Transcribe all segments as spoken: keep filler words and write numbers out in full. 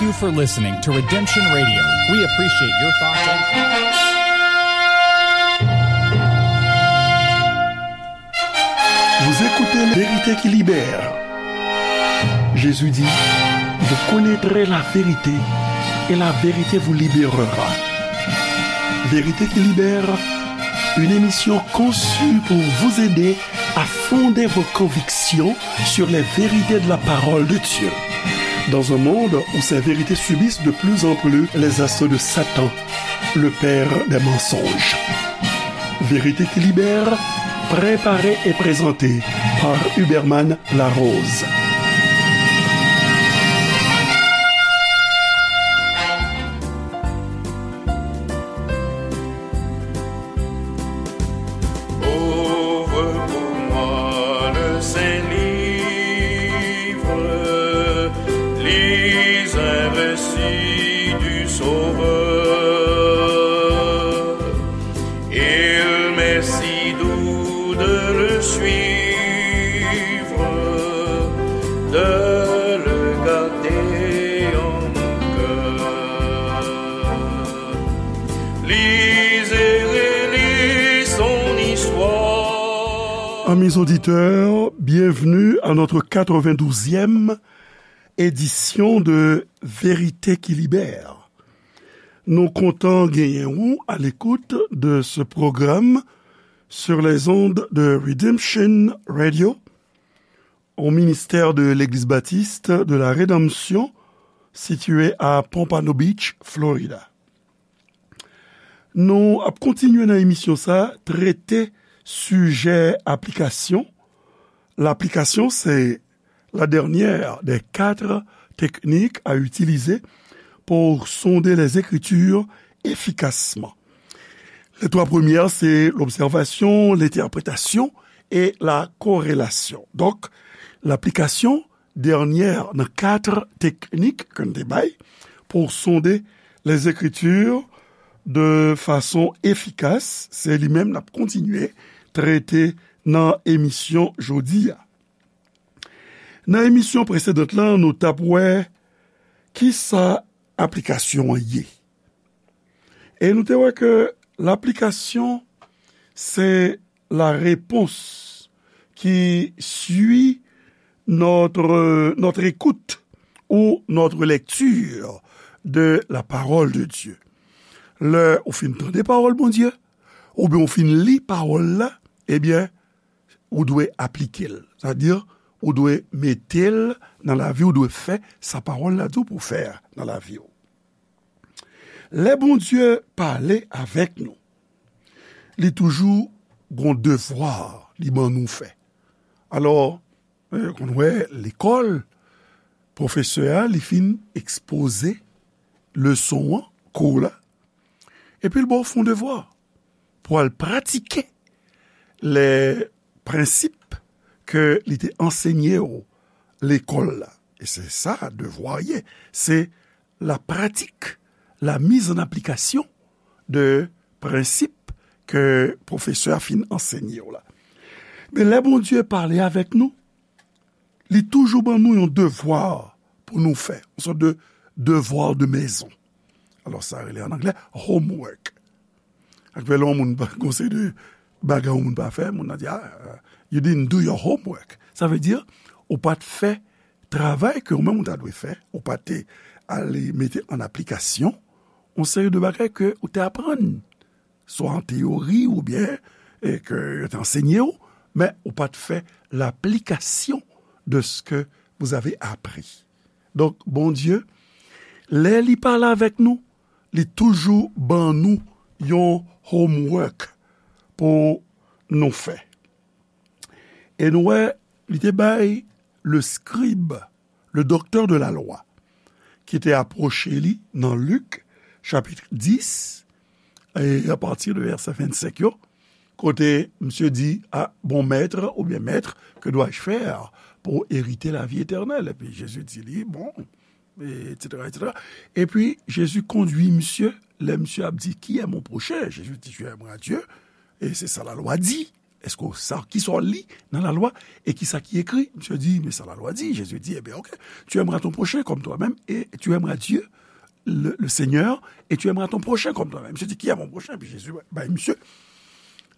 Thank you for listening to Redemption Radio. We appreciate your thoughts and Vous écoutez La Vérité qui libère. Jésus dit, vous connaîtrez la vérité et la vérité vous libérera. Vérité qui libère, une émission conçue pour vous aider à fonder vos convictions sur les vérités de la parole de Dieu. Dans un monde où ces vérités subissent de plus en plus les assauts de Satan, le père des mensonges. Vérité qui libère, préparée et présentée par Huberman Larose. Ouvre pour moi le saint livre, lis un récit du Sauveur. Il m'est si doux de le suivre, de le garder en mon cœur. Lisez et lis son histoire. Amis auditeurs, bienvenue à notre quatre-vingt-douzième édition de Vérité qui libère. Nou kontan genyen ou à l'écoute de ce programme sur les ondes de Redemption Radio, au ministère de l'Église baptiste de la Rédemption, situé à Pompano Beach, Florida. Nou ap kontinye nan emisyon sa, trete sijè aplikasyon. L'application, c'est la dernière des quatre techniques à utiliser pour sonder les Écritures efficacement. Les trois premières, c'est l'observation, l'interprétation et la corrélation. Donc, l'application, dènyè nan kat teknik ke n te bay pou sonde les Écritures de façon efficace, se li menm n ap kontinye trete nan emisyon jodi a. Nan emisyon presedan lan, nou t ap wè kisa aplikasyon an ye. E nou te wè ke laplikasyon, c'est la réponse qui suit notre, notre écoute ou notre lecture de la parole de Dieu. Lè ou fin tande pawòl Bondye, oubyen ou fin li pawòl la, ebyen, ou dwe aplike l. Sa di, ou dwe mete l nan lavi, ou dwe fè sa pawòl la di w pou w fè nan lavi w. Lè Bondye pale avèk nou, li toujou gon devwa li ban nou fè. Alò, eh, konn wè lekòl, pwofesè a, li fin ekspoze leson an, kou la, epi l ba w fè yon devwa pou al pratike lè prensip ke li te ansenye w lekòl la. E se sa devwa ye. Se la pratique, la mise en application de prensip ke pwofesè a fin ansenye w la. Men lè Bondye pale avèk nou, li toujou ban nou yon devwa pou nou fè, yon sòt de devoir de maison. Alò, sa rele an anglè homework. Ak fè lè yon moun pa, gon seri de bagay yon moun pa fè, moun nan di, "Ah, you didn't do your homework." Sa vle di, ou pa t fè travay ke ou menm ou ta dwe fè, ou pa te ale mete an aplikasyon yon seri de bagay ke ou te aprann, swa an teyori oubyen, e, ke yo te ansenye w, men ou pa t fè laplikasyon de ce que vous avez appris. Donk, Bondye, lè li pale avèk nou, li toujou ban nou yon homework pou nou fè. E nou wè, li te bay le scribe, le docteur de la loi, ki te apwoche li nan Lik, chapit dis, e apati de vèsè vennsenk yo, kote misye di, "Ah, bon maître, ou bien maître, que dois-je faire pour hériter la vie éternelle?" Epi Jezi di li, bon, et cetera, et cetera. Epi Jezi kondui misye, lè misye ap di, "Qui est mon prochain?" Jezi di, "Tu aimeras Dieu, et c'est ça la loi dit." Èske w sa, ki sa w li nan lalwa e ki sa ki ekri? Misye di, men sa lalwa di. Jezi di, ebyen, ok, tu aimeras ton prochain comme toi-même et tu aimeras Dieu, le, le Seigneur, et tu aimeras ton prochain comme toi-même. Misye di, qui est mon prochain? Epi Jezi bay misye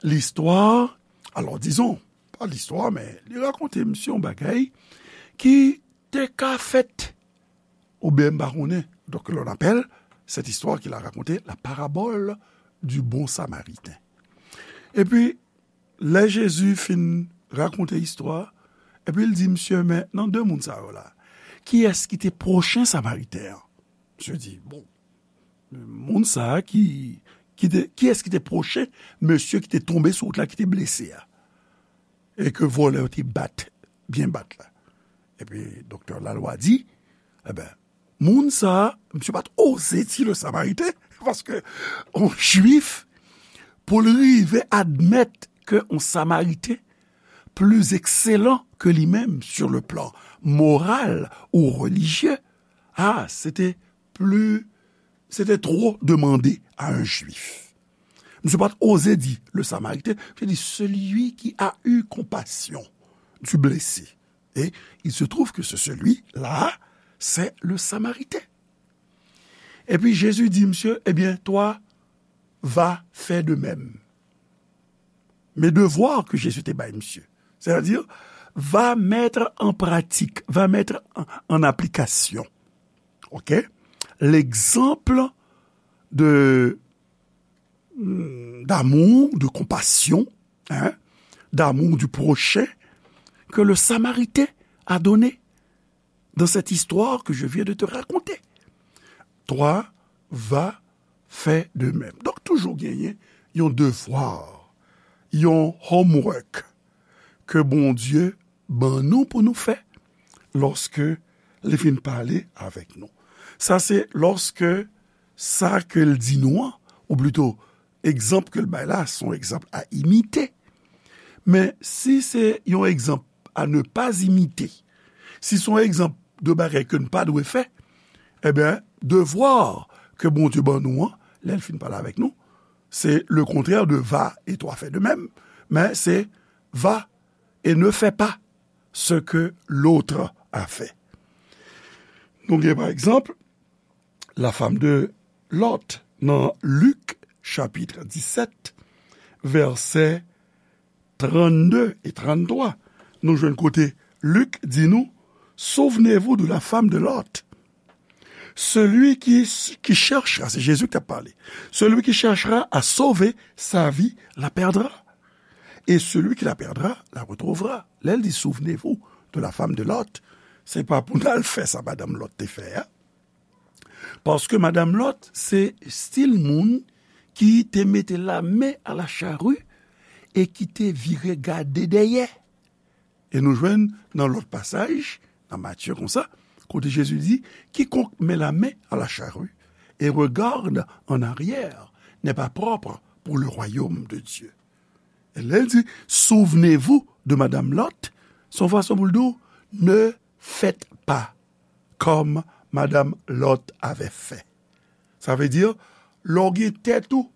listwa, alò, dizon, pa listwa, men li rakonte misye yon bagay ki te ka fèt, oubyen m pa konnen. Donc, l'on appelle cette histoire qu'il a racontée la parabole du bon Samaritain. Epi, lè Jezi fin rakonte istwa, epi l di, misye, men nan de moun sa yo la, kiyès ki te pwochen Samariten an? Misye di, bon, moun sa a ki, ki te, kiyès ki te pwochen mesye ki te tonbe sou wout la, ki te blese a? E ke vòlè yo te bat, byen bat la. Epi doktè lalwa di, eben, moun sa a, misye pa t oze di le Samariten, paske yon Jwif, pou l rive admèt ke yon Samariten pli ekselan ke li menm sur le plan moral ou relijye, ah, se te pli, se te twò demande a yon Jwif. Misye pa t oze di le Samariten, misye di celui qui a eu compassion du blessé. Et il se trouve que ce celui-là, c'est le Samaritain. Epi Jezi di misye, ebyen, toi, va faire de même. Men devwa ke Jezi te bay misye. C'est-à-dire, va mettre en pratique, va mettre en, en application, ok, l'exemple de, d'amour, de compassion, hein, d'amour du prochain que le Samaritain a donné dans cette histoire que je viens de te raconter. Toi, va faire de même. Donk, toujou genyen yon devwa, yon homework ke Bondye ban nou pou nou fè lòske li fin pale avèk nou. Sa se lòske sa ke l di nou an, ou plito, egzanp ke l bay la, se yon egzanp a imite. Men si se yon egzanp à ne pas imiter, si se yon egzanp de bagay ke n pa dwe fè, ebyen, devwa ke Bondye ban nou an, lè l fin pale avèk nou, se le contraire de va et toi fais de même, men se va et ne fais pas ce que l'autre a fait. Nou gen, pa egzanp, la femme de Lot nan Lik, chapit disèt, vèsè trannde e tranntwa. Nou jwenn kote Lik di nou, souvenez-vous de la femme de Lot. Celui qui, qui cherchera, c'est Jésus qui a parlé, celui qui cherchera à sauver sa vie la perdra. Et celui qui la perdra la retrouvera. Lè l di, souvenez-vous de la femme de Lot, se pa pou n al fè sa madanm Lot te fè a. Paske madanm Lot, se stil moun ki te mete la main à la charrue e ki te vire gade dèyè. E nou jwenn nan lòt pasaj, nan Matye konsa, kote Jezi di, quiconque met la main à la charrue et regarde en arrière n'est pas propre pour le royaume de Dieu. E lè l di, souvenez-vous de Madame Lot, se yon fason pou l di w, ne faites pas comme Madame Lot avait fait. Sa vle di, lè w gen tèt ou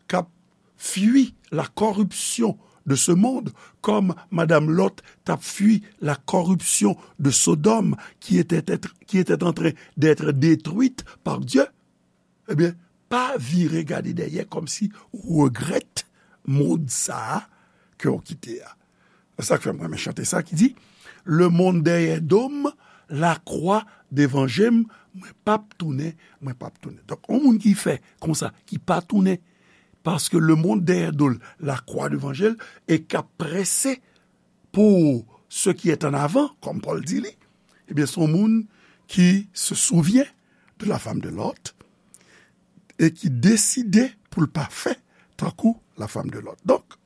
k ap fui la corruption de ce monde, comme Madame Lot t ap fui la corruption de Sodome, qui était, qui était en train d'être détruite par Dieu, ebyen, pa vire gade dèyè kòmsi ou regrèt mond sa a ke w kite a. Se sa k fè m renmen chante sa ki di, le monde derrière dos m, la croix devant je m, mwen p ap tounen, mwen p ap tounen. Donk, yon moun ki fè konsa, ki pa tounen, paske le monde derrière dos l, la croix devant je l, e k ap prese pour ce qui est en avant, comme Paul dit li, ebyen, se yon moun ki se souvyen de la femme de Lot e ki deside pou l pa fè tankou la femme de Lot. Donk,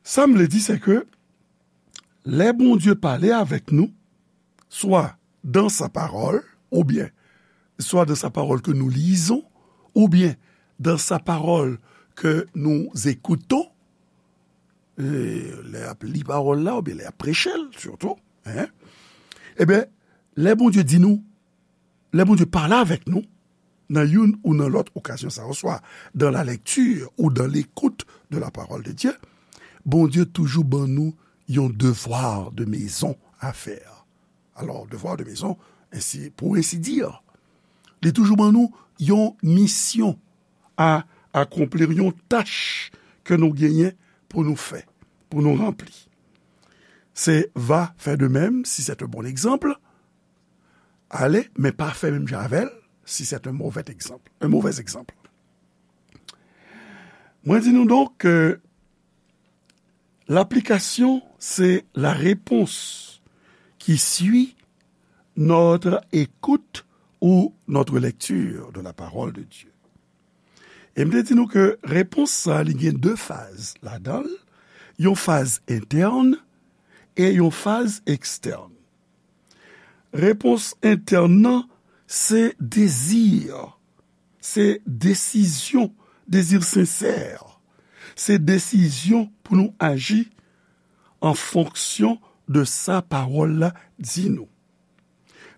sa m vle di, se ke lè Bondye pale avèk nou, swa dans sa parole, oubyen swa dans sa parole que nous lisons, oubyen dans sa parole que nous écoutons, e, lè y ap li pawòl la, oubyen lè y ap preche l, sitou, en, ebyen, lè Bondye di nou, lè Bondye pale avèk nou, nan youn ou nan lòt okazyon sa yo, swa dans la lecture ou dans l'écoute de la parole de Dieu, Bondye toujou ban nou yon devoir de maison à faire. Alors, devoir de maison, ensi, pour ainsi dire, li toujou ban nou yon misyon a akonpli, yon tach ke nou genyen pou nou fè, pou nou ranpli. Se va fè de menm, si c'est un bon exemple, ale, men pa fè menm jan avè l, si c'est un mauvais exemple, un mauvais exemple. Mwen di nou donk ke laplikasyon, se la réponse qui suit notre écoute ou notre lecture de la parole de Dieu. E m te di nou ke repons sa, li gen de faz ladan l, yon faz entèn e yon faz ekstèn. Repons entèn nan, se dezi, se desizyon, dezi sensè. Se desizyon pou nou aji an fonksyon de sa pawòl la di nou.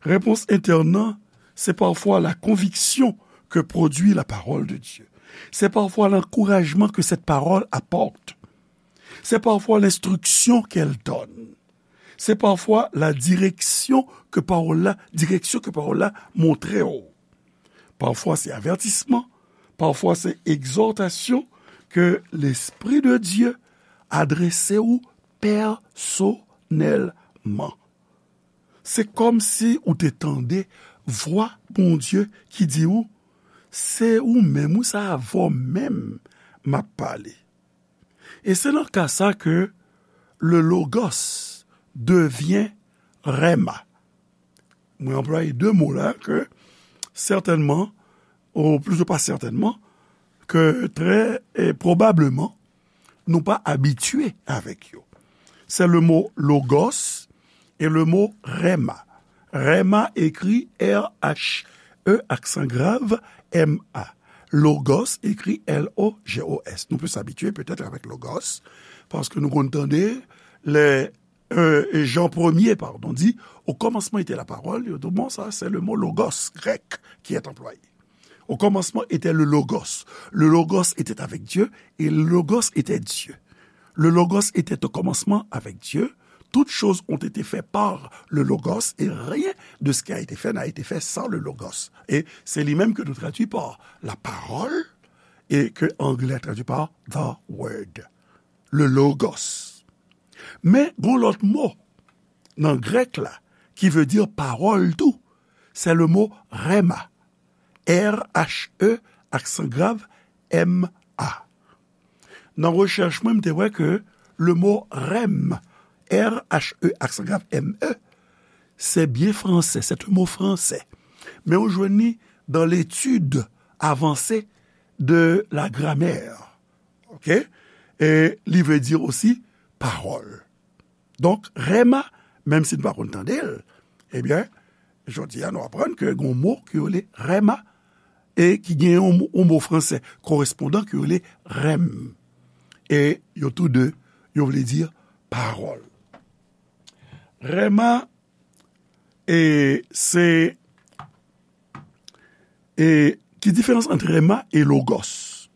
Repons entèn nan, se pafwa la konviksyon ke pwodui la parole de Dieu. Se pafwa lankourajman ke cette parole apporte. Se pafwa lenstriksyon ke l done. Se pafwa la direksyon ke pawòl la, direksyon ke pawòl la montre w. Pafwa se avètisman, pafwa se egzòtasyon ke Lespri de Dye adrese w pèsonèlman. Se kòmsi ou te tande vwa Bondye ki di w, se ou menm, wi, se avè w menm m ap pale. E se nan ka sa ke le Logos devyen Rema. Mwen anplwaye de mo la ke sètènman, ou plito pa sètènman, ke trè, e pwobableman, nou pa abitye avèk yo. Se le mo Logos e le mo Rema. Rema ekri R H E aksan grav M A. Logos ekri L O G O S. Nou plis abitye petèt avèk Logos, paske nou konn tande lè, e, Jan premye, padon, di, au commencement était la parole, yo di, bon, sa, se le mo Logos grèk ki est employé. Au commencement était le Logos. Le Logos était avec Dieu et le Logos était Dieu. Le Logos était au commencement avec Dieu. Toutes choses ont été faites par le Logos et rien de ce qui a été fait n'a été fait sans le Logos. E se li menm ke nou tradui pa la parole e ke anglè tradui pa the word. Le Logos. Men, gon lòt mo nan grèk la ki vle di pawòl tou. Se le mo Rema. R H E aksan grav M A. Nan rechèch mwen, m te wè ke le mo rem, R H E aksan grav M E, se byen fransè, se yon mo fransè. Men ou jwenn li dans l'étude avancée de la grammaire. Ok? E li vle di osi pawòl. Donk, rema, menm si n pa konn tande l, ebyen, jodi a, nou aprann ke gen yon mo ki rele rema e ki gen yon, yon mo fransè korespondan ki rele rem. E yo tou de, yo vle di pawòl. Rema, e se, e ki diferans ant rema e logos?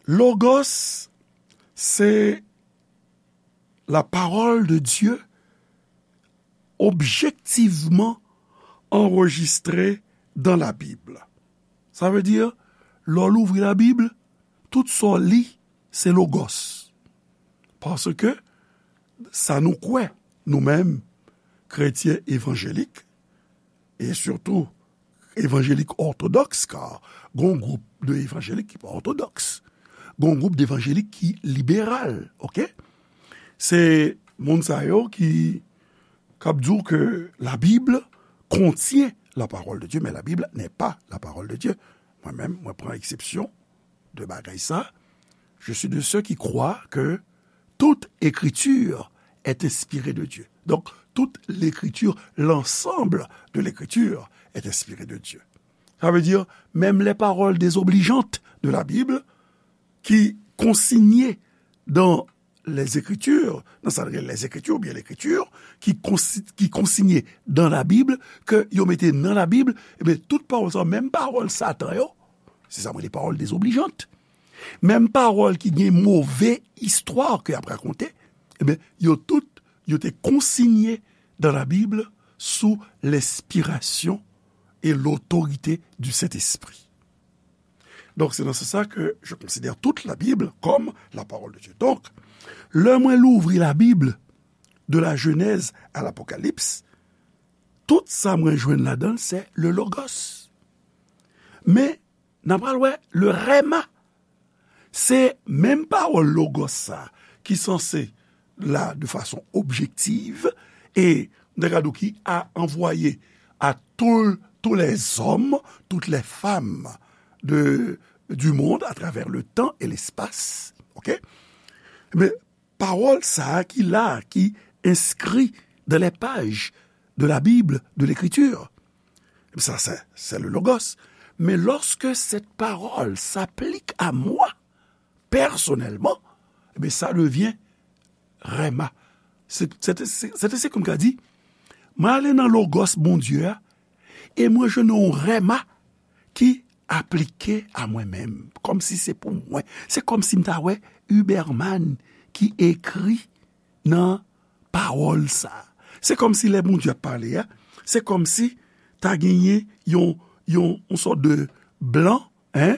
Logos, se la parole de Dieu objectivement enregistrée dans la Bible. Sa vle di, lè w louvri Labib, tout sa w li, se logos. Paske sa nou kwè, nou menm, kretyen evanjelik, e sitou evanjelik òtodòks, ka gon gwoup de evanjelik ki pa òtodòks, gon gwoup de evanjelik ki liberal, ok? Se moun sa yo ki, k ap di w ke la Bible contient la parole de Dieu, mais la Bible n'est pas la parole de Dieu. Mwen menm, mwen pran eksepsyon de bagay sa. Je suis de ceux qui croient que toute écriture est inspirée de Dieu. Donc, toute l'écriture, l'ensemble de l'écriture est inspirée de Dieu. Ça veut dire, même les paroles désobligeantes de la Bible, qui consignées dans les Écritures, dans sa, les Écritures ou bien l'Écriture, qui consi-, qui consignées dans la Bible, ke yo mete nan Labib, ebyen, tout pawòl sa, menm pawòl Satan yo, se sa mwen rele pawòl désobligeante. Menm pawòl ki gen move istwa ke y ap rakonte, ebyen, yo tout, yo te konsinye dans la Bible sous l'inspiration et l'autorité du Saint-Esprit. Donc, c'est dans ce sens que je considère toute la Bible comme la parole de Dieu. Donc, lè mwen louvri la Bible, de la Genèse à l'Apocalypse, tout sa mwen jwenn ladan l, se le Logos. Men, n a pral wè le Rhema. Se menm pawòl Logos sa ki sanse la de fason objektiv e, m ta ka di w, ki a anvwaye à tout, tous les hommes, toutes les femmes de, du monde à travers le temps et l'espace. OK? Men pawòl sa a ki la, ki enskri dans les pages de la Bible, de l'Écriture, ça, c'est, c'est le Logos. Mais lorsque cette parole s'applique à moi, personnellement, eh bien, ça devient Rhema. Se, se, se, se, se kòm ka di, mwen ale nan Logos Bondye a, e mwen jwenn yon Rhema ki aplike a mwen menm, kòmsi se pou mwen. Se kòmsi m ta wè Huberman ki ekri nan pawòl sa. Se kòmsi lè Bondye ap pale a, se kòmsi ta genyen yon, yon, yon sòt de blan, en,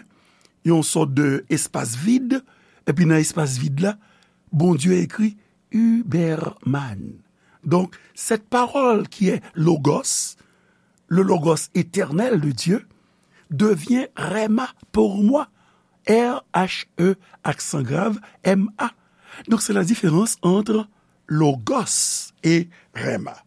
yon sòt de espas vid, epi nan espas vid la, Bondye ekri Huberman. Donc, cette parole qui est Logos, le Logos éternel de Dieu, devient Rhema pour moi. R H E, accent grave, M A. Donc, c'est la différence entre Logos et Rhema.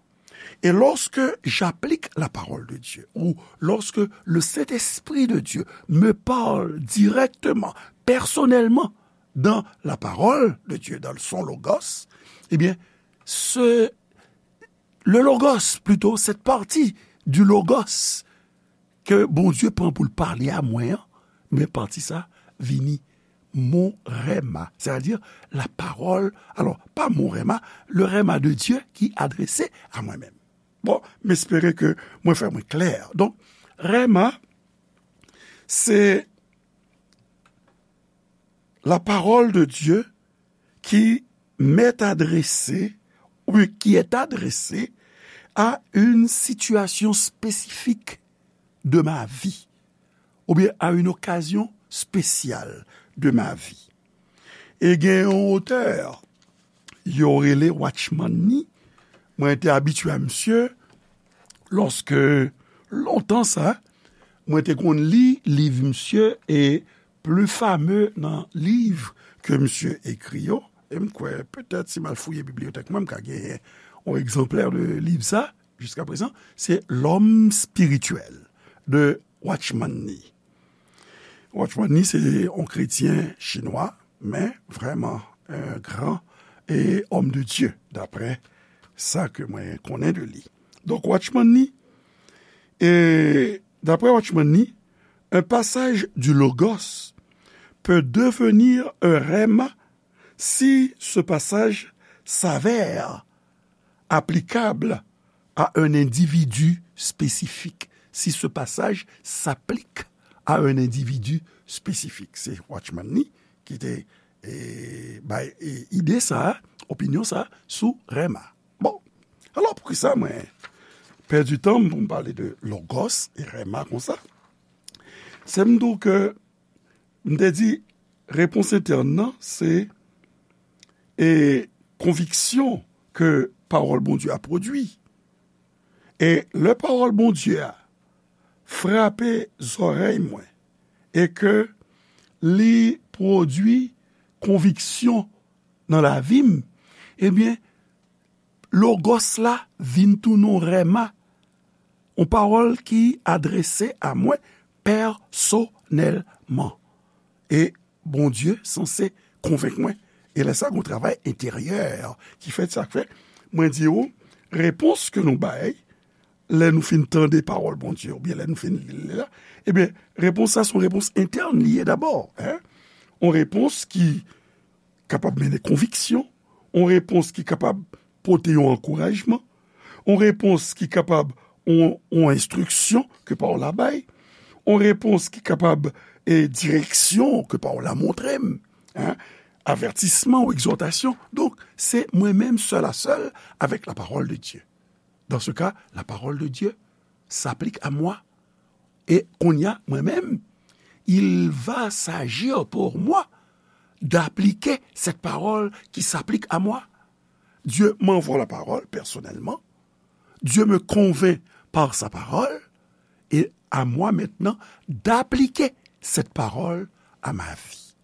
Et lorsque j'applique la parole de Dieu, ou lorsque le Saint-Esprit de Dieu me parle directement, personnellement, dans la parole de Dieu, dans son Logos, eh bien, ce, le Logos, plutôt, cette partie du Logos ke Bondye pran pou l pale a mwen an, men pati sa vini mon Rhema, c'est-à-dire la parole, alors, pas mon Rhema, le Rhema de Dieu ki adrese a mwen menm. Bon, m espere ke mwen fè mwen klè. Donk, Rhema, se la parole de Dieu qui m'est adressée ou qui est adressée à une situation spécifique de ma vie, ou bien à une occasion spéciale de ma vie. E gen yon otè, yo rele Watchman Nee. Mwen te abitye a misye lòske lontan sa, mwen te konn li liv misye e pli fame nan liv ke misye ekri yo. E m kwè, petèt, si m al fouye bibliyotèk mwen, m ka genyen yon egzanplè de liv sa, jiska prezan, se L'homme spirituel de Watchman Nee. Watchman Nee, se yon kretyen chinwa, men vrèman un grand et homme de Dieu, daprè sa ke mwen konnen de li. Donk, Watchman Nee, e daprè Watchman Nee, un passage du Logos peut devenir un Rhema si ce passage s'avère applicable à un individu spécifique. Si ce passage s'applique à un individu spécifique. Se Watchman Nee ki te, e, bay, e, ide sa, opinyon sa sou Rhema. Bon, alò poukisa mwen pèdi tan m pou m pale de Logos e Rhema konsa? Se m di w ke m te di, repons entèn nan, se, e, konviksyon ke pawòl Bondye a pwodui. E lè pawòl Bondye a frape zòrèy mwen e ke li pwodui konviksyon nan lavi m, ebyen, Logos la vin tounen yon Rhema, yon pawòl ki adrese a mwen pèsonèlman. E Bondye sanse konvenk mwen. E lè sa, gon travay enteryè ki fèt, sa k fè mwen di w, repons ke nou bay lè nou fin tande pawòl Bondye, oubyen lè nou fin li l la, ebyen, repons sa se yon repons entèn li ye dabò, en. Yon repons ki kapab mennen konviksyon, yon repons ki kapab pote yon ankourajman, yon repons ki kapab yon, yon enstriksyon ke pawòl la bay, yon repons ki kapab e direksyon ke pawòl la montre m, en, avètisman ou egzòtasyon. Donk, se mwen menm sèl a sèl avèk la parole de Dieu. Dans ce cas, la parole de Dieu s'applique à moi. E kounye a, mwen menm, il va s'agir pour moi d'appliquer cette parole qui s'applique à moi. Dieu m'envoie la parole personnellement. Dieu me convainc par sa parole. Et à moi maintenant d'appliquer cette parole à ma vie.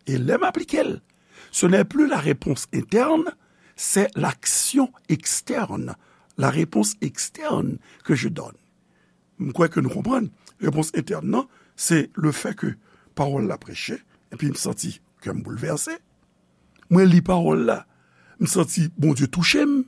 E lè m aplike l, ce n'est plus la réponse interne, c'est l'action externe, la réponse externe que je donne. M kwè ke nou konprann. Repons entèn nan, se le fait que pawòl la preche, epi m santi kè m boulvèse. Mwen li pawòl la, m santi Bondye touche m.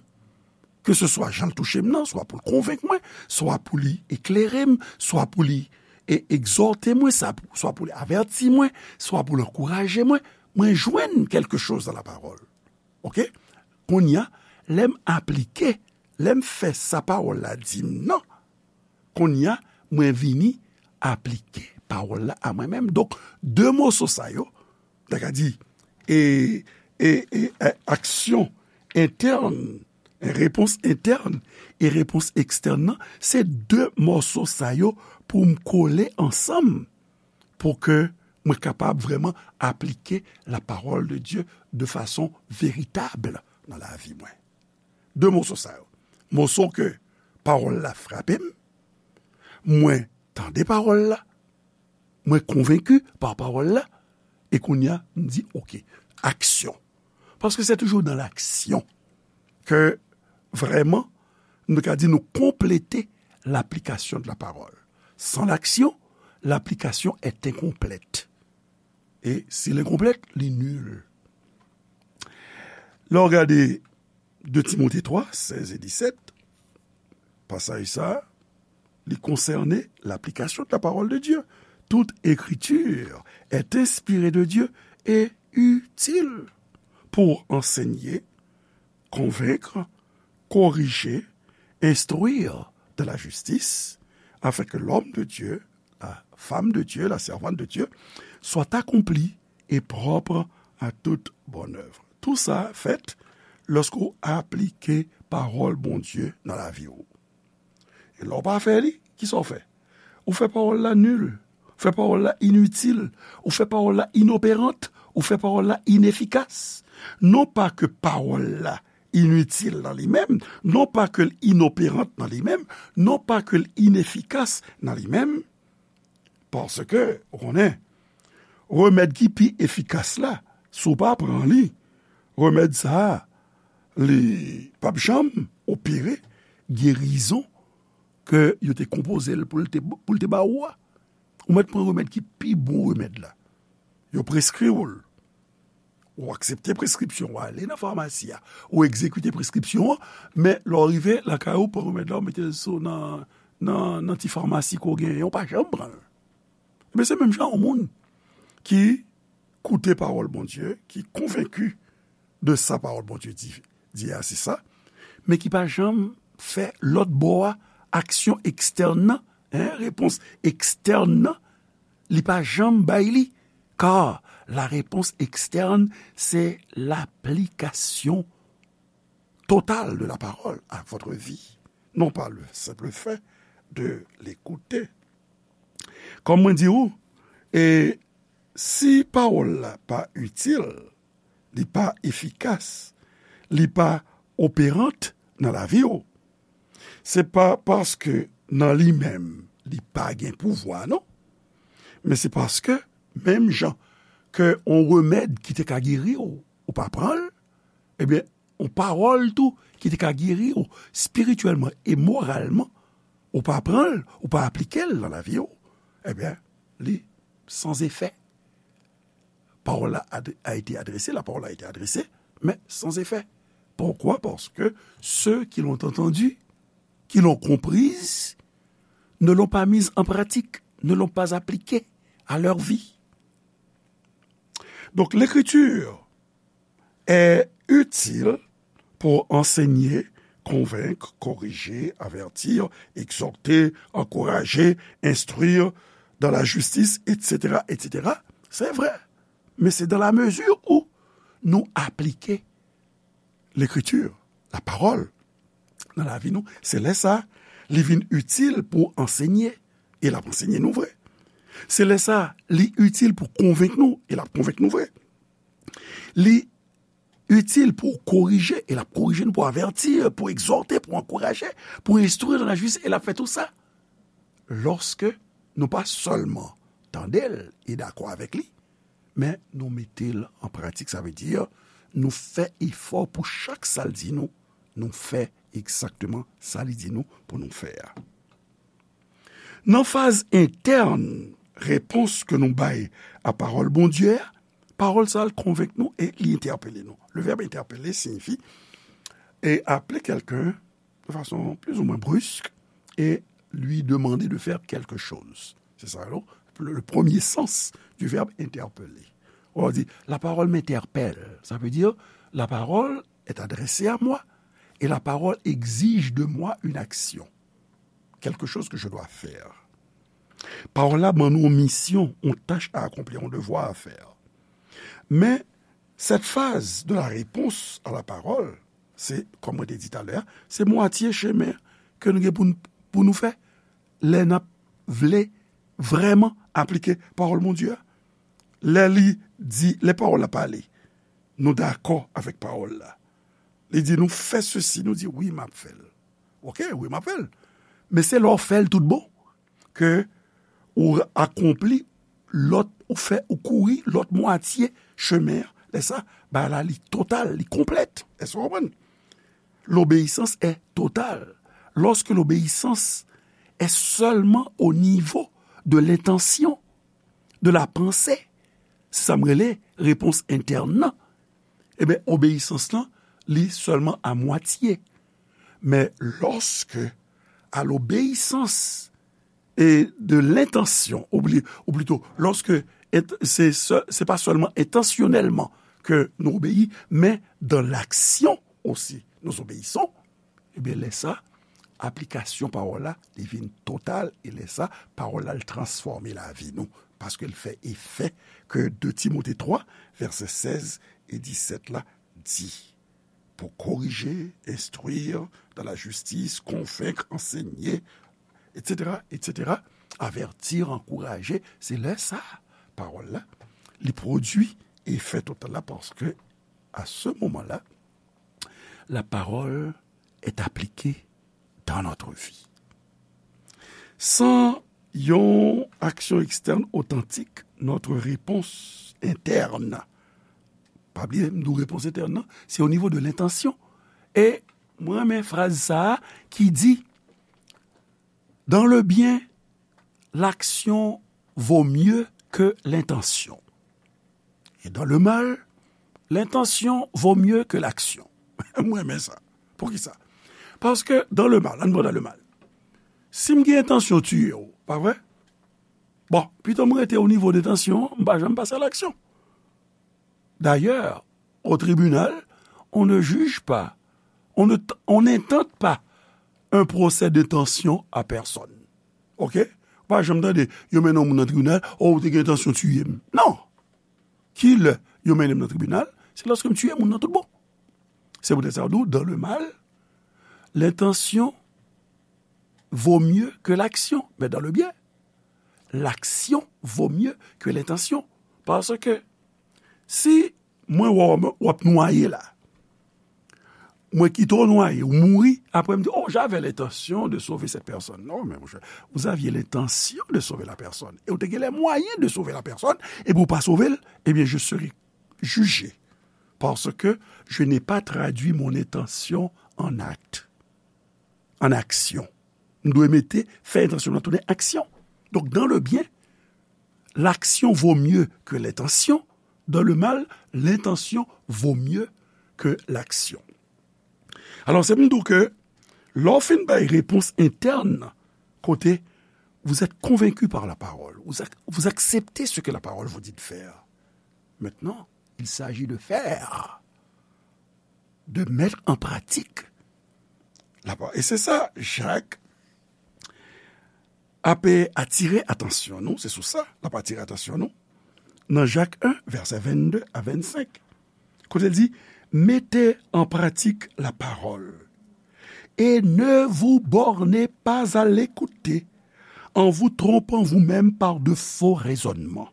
Ke se swa jan l touche m nan, swa pou l konvenk mwen, swa pou li eklere m, swa pou li e egzòte mwen, sa- swa pou li avèti mwen, swa pou l ankouraje mwen, mwen jwenn quelque chose dans la parole. Oke? Kounye a, lè m aplike, lè m fè sa pawòl la di m nan, kounye a, mwen vini aplike pawòl la a mwen menm. Donk, de moso sa yo, ta ka di, e, e, e, e, aksyon entèn, repons entèn e repons ekstèn nan, se de moso sa yo pou m kole ansanm pou ke mwen kapab vrèman aplike la parole de Dieu de façon véritable nan lavi mwen. De moso sa yo. Moso ke pawòl la frape m, mwen tande pawòl la, mwen konvenki pa pawòl la, e kounye a, m di, oke, aksyon. Paske se toujou dans l'action ke vrèman, nou ka di nou konplete l'application de la parole. Sans l'action, l'application est incomplète. E si l enkonplèt, li nil. Lè w gade de Timote twa, sèz e disèt, pasaj sa, li konsène l'application de la parole de Dieu. Toute écriture est inspirée de Dieu et utile pour enseigner, convaincre, corriger, instruire dans la justice, afin que l'homme de Dieu, la femme de Dieu, la servante de Dieu, soit accompli et propre à toute bonne œuvre. Tout sa fèt lòske w aplike pawòl Bondye nan lavi w. E lè w pa fè li, kisa w fè? Ou fè pawòl la nil, ou fè pawòl la initil, ou fè pawòl la inoperant, ou fè pawòl la inefikas. Non pa ke pawòl la initil nan li menm, non pa ke l inoperant nan li menm, non pa ke l inefikas nan li menm, paske, ou konnen, remèd ki pi efikas la, si w pa pran li, remèd sa a, li p ap janm opere gerizon ke yo te konpoze l pou l te, pou l te ba ou a. Ou mèt pran remèd ki pi bon remèd la. Yo preskri w l. Ou aksepte preskripsyon, ou ale nan famasi a, ou egzekite preskripsyon an, men lè w rive lakay ou, pran remèd la, ou mete l sou nan, nan, nan ti famasi ke w genyen, ou pa janm pran l. Ebyen, se menm jan yon moun ki koute pawòl Bondye, ki konvenki de sa pawòl Bondye di, di a, se sa, men ki pa janm fè lòt bò a, aksyon ekstèn nan, en, repons ekstèn nan, li pa janm bay li, car la réponse externe, c'est l'application totale de la parole à votre vie, non pas le simple fait de l'écouter. Kòm mwen di ou, e si pawòl la pa itil, li pa efikas, li pa operant nan lavi w, se pa paske nan li menm li pa gen pouvwa, non. Men se paske, menm jan ke yon remèd ki te ka geri w, ou pa pran l, ebyen, yon pawòl tou ki te ka geri w espirityèlman e moralman, ou pa pran l, ou pa aplike l nan lavi w, ebyen, li san efè. Pawòl la ad- a été adressée, la parole a été adressée, mais sans effet. Pourquoi? Parce que ceux qui l'ont entendu, qui l'ont comprise, ne l'ont pas mise en pratique, ne l'ont pas appliquée à leur vie. Donc, l'écriture est utile pour enseigner, convaincre, corriger, avertir, exhorter, encourager, instruire dans la justice, et cetera, et cetera, se vre. Men se dans la mesure où nou aplike Lekritir, lapawòl, nan lavi nou, se lè sa, li vin itil pou ansenye, e l ap ansenye nou vre. Se lè sa, li itil pou konvenk nou, e l ap konvenk nou vre. Li itil pou korije, e l ap korije nou, pou avèti, pou egzòte, pou ankouraje, pou enstwi nan lajistis, e l ap fè tou sa. Lòske nou pa sèlman tande l e dakò avèk li, men nou mete l an pratik, sa vle di, nou fè efò pou chak sa l di nou, nou fè egzakteman sa li di nou pou nou fè a. Nan faz entèn repons ke nou bay a pawòl Bondye a, pawòl sa a konvenk nou e li entèpele nou. Le verbe interpeller signifie et appeler quelqu'un de façon plus ou moins brusque et lui demander de faire quelque chose. C'est ça, non? Le, le premier sens du verbe interpeller. On dit, la parole m'interpelle. Ça veut dire, la parole est adressée à moi et la parole exige de moi une action. Quelque chose que je dois faire. Pawòl la ban nou yon misyon, yon tach a akonpli, yon devwa a fè. Men, cette phase de la réponse à la parole, se, kòm mwen te di talè a, se mwatye chemen ke nou gen pou n, pou nou fè lè n ap vle vrèman aplike pawòl Bondye a. Lè li di, lè pawòl la pale, nou dakò avèk pawòl la. Li di nou fè sesi, nou di wi, m ap fè l. Oke, wi, m ap fè l. Men se lè w fè l tout bon ke ou akonpli lòt, ou fè, ou kouri lòt mwatye chemen an. Lè sa, bagay la li total, li konplèt. Èske w konprann? L'obéissance est totale. Lorsque l'obéissance est seulement au niveau de l'intention, de la pensée, se sa m rele repons entèn nan. Ebyen, obeyisans lan, li sèlman a mwatye. Men lòske a l'obéissance et de l'intention, ou pli-, ou plito, lòske ent-, se, se, se pa sèlman entansyonèlman ke nou obeyi, men dans l'action aussi, nous obéissons, ebyen, lè sa, aplikasyon pawòl la, li vin total, e lè sa, pawòl la, l transfòme lavi nou, paske l fè efè ke de Timote twa, vèsè sèz e disèt la, di, pour corriger, instruire dans la justice, convaincre, enseigner, et cetera, et cetera, avertir, encourager, se lè sa, pawòl la, li pwodui efè total la, paske, à ce moment-là, la parole est appliquée dans notre vie. Sans yon action externe authentique, notre réponse interne, pa bliye, m di w repons entèn nan, se o nivo de lentansyon. E mwen renmen fraz sa a ki di, dans le bien, l'action vaut mieux que l'intention. Et dans le mal, l'intention vaut mieux que l'action. Mwen renmen sa. Poukisa? Paske dans le mal, ann pran dans le mal. Si m gen entansyon tiye w, pa vre? Bon, pito m rete o nivo de entansyon, m pa janm pase a l'action. D'ailleurs, au tribunal, on ne juge pas, on ne, on n'intente pas un procès d'intention à personne. Oke? Ou pa janm tande, yo mennen yon moun nan tribinal, o, ou te gen entansyon tiye m. Non! Ki lè yo mennen m nan tribinal? Se lòske m tiye moun nan tout bon. Se poutèt sa yo di w, dans le mal, l'intention vaut mieux que l'action. Mais dans le bien, l'action vaut mieux que l'intention. Paske si mwen wè w, w ap nwaye la, mwen kite w nwaye, ou mouri, apre m di, oh, j'avais l'intention de sauver cette personne. Non, men monchè, vous aviez l'intention de sauver la personne. Et ou te gen les moyens de sauver la personne, epi ou pa sove l, eh bien, je serai jugé. Parce que je n'ai pas traduit mon intention en acte, en action. M dwe mete, fè entansyon mwen tounen aksyon. Donc, dans le bien, l'action vaut mieux que l'intention. Dans le mal, l'intention vaut mieux que l'action. Alò, se pou m di w ke lè w fin bay repons entèn, kote vous êtes convaincu par la parole, vous ac-, vous acceptez ce que la parole vous dit de faire. Maintenant, il s'agit de faire, de mettre en pratique la parole. Et c'est ça, Jacques, ap atire atansyon nou, se sou sa l ap atire atansyon nou, nan Jak en, vèsè vennde a vennsenk, kote l di, mettez en pratique la parole et ne vous bornez pas à l'écouter en vous trompant vous-même par de faux raisonnements.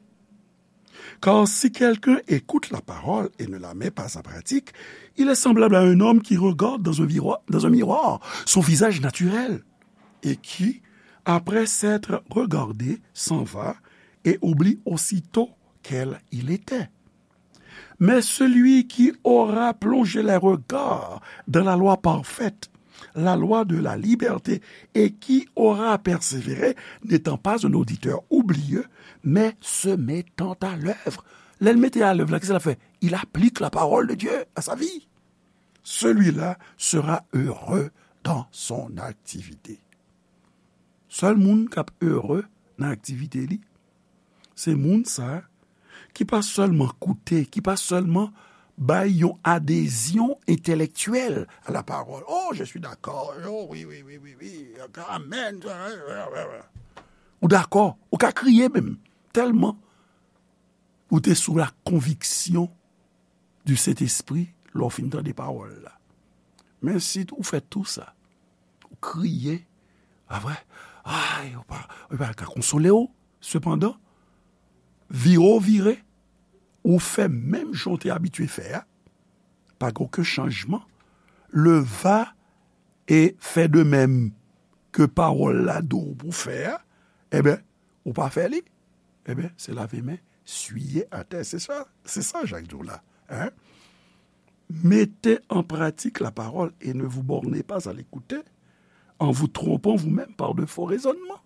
Car si quelqu'un écoute la parole et ne la met pas en pratique, il est semblable à un homme qui regarde dans un miroir, dans un miroir son visage naturel et qui, après s'être regardé, s'en va et oublie aussitôt quel il était. Mais celui qui aura plongé les regards dans la loi parfaite, la loi de la liberté, et qui aura persévéré, n'étant pas un auditeur oublieux, mais se mettant à l'œuvre. Lè l mete a lèv la, kisa l ap fè? Il applique la parole de Dieu à sa vie. Celui-là sera heureux dans son activité. Sèl moun k ap ere nan aktivite li, se moun sa a ki pa sèlman koute, ki pa sèlman bay yon adezyon entèlektyèl a la parole. Oh, je suis d'accord. Oh, oui, oui, oui, oui, oui. Amen. Ou dakò, ou ka kriye menm, tèlman ou te sou la konviksyon du Sentespri lè w fin tande pawòl la. Men si ou fè tou sa, ou kriye, apre, ay, ou pa, ou pa ka konsole w. Sepandan, vire w vire, ou fè menm jan w te abitye fè a, pa gen okenn chanjman. Le va et fais de même ke pawòl la di w pou fè a, enben, ou pa fè li, enben, se lave men, siye atè. Se sa, se sa Jak di w la. Hein? Mettez en pratique la parole et ne vous bornez pas à l'écouter en vous trompant vous-même par de faux raisonnements.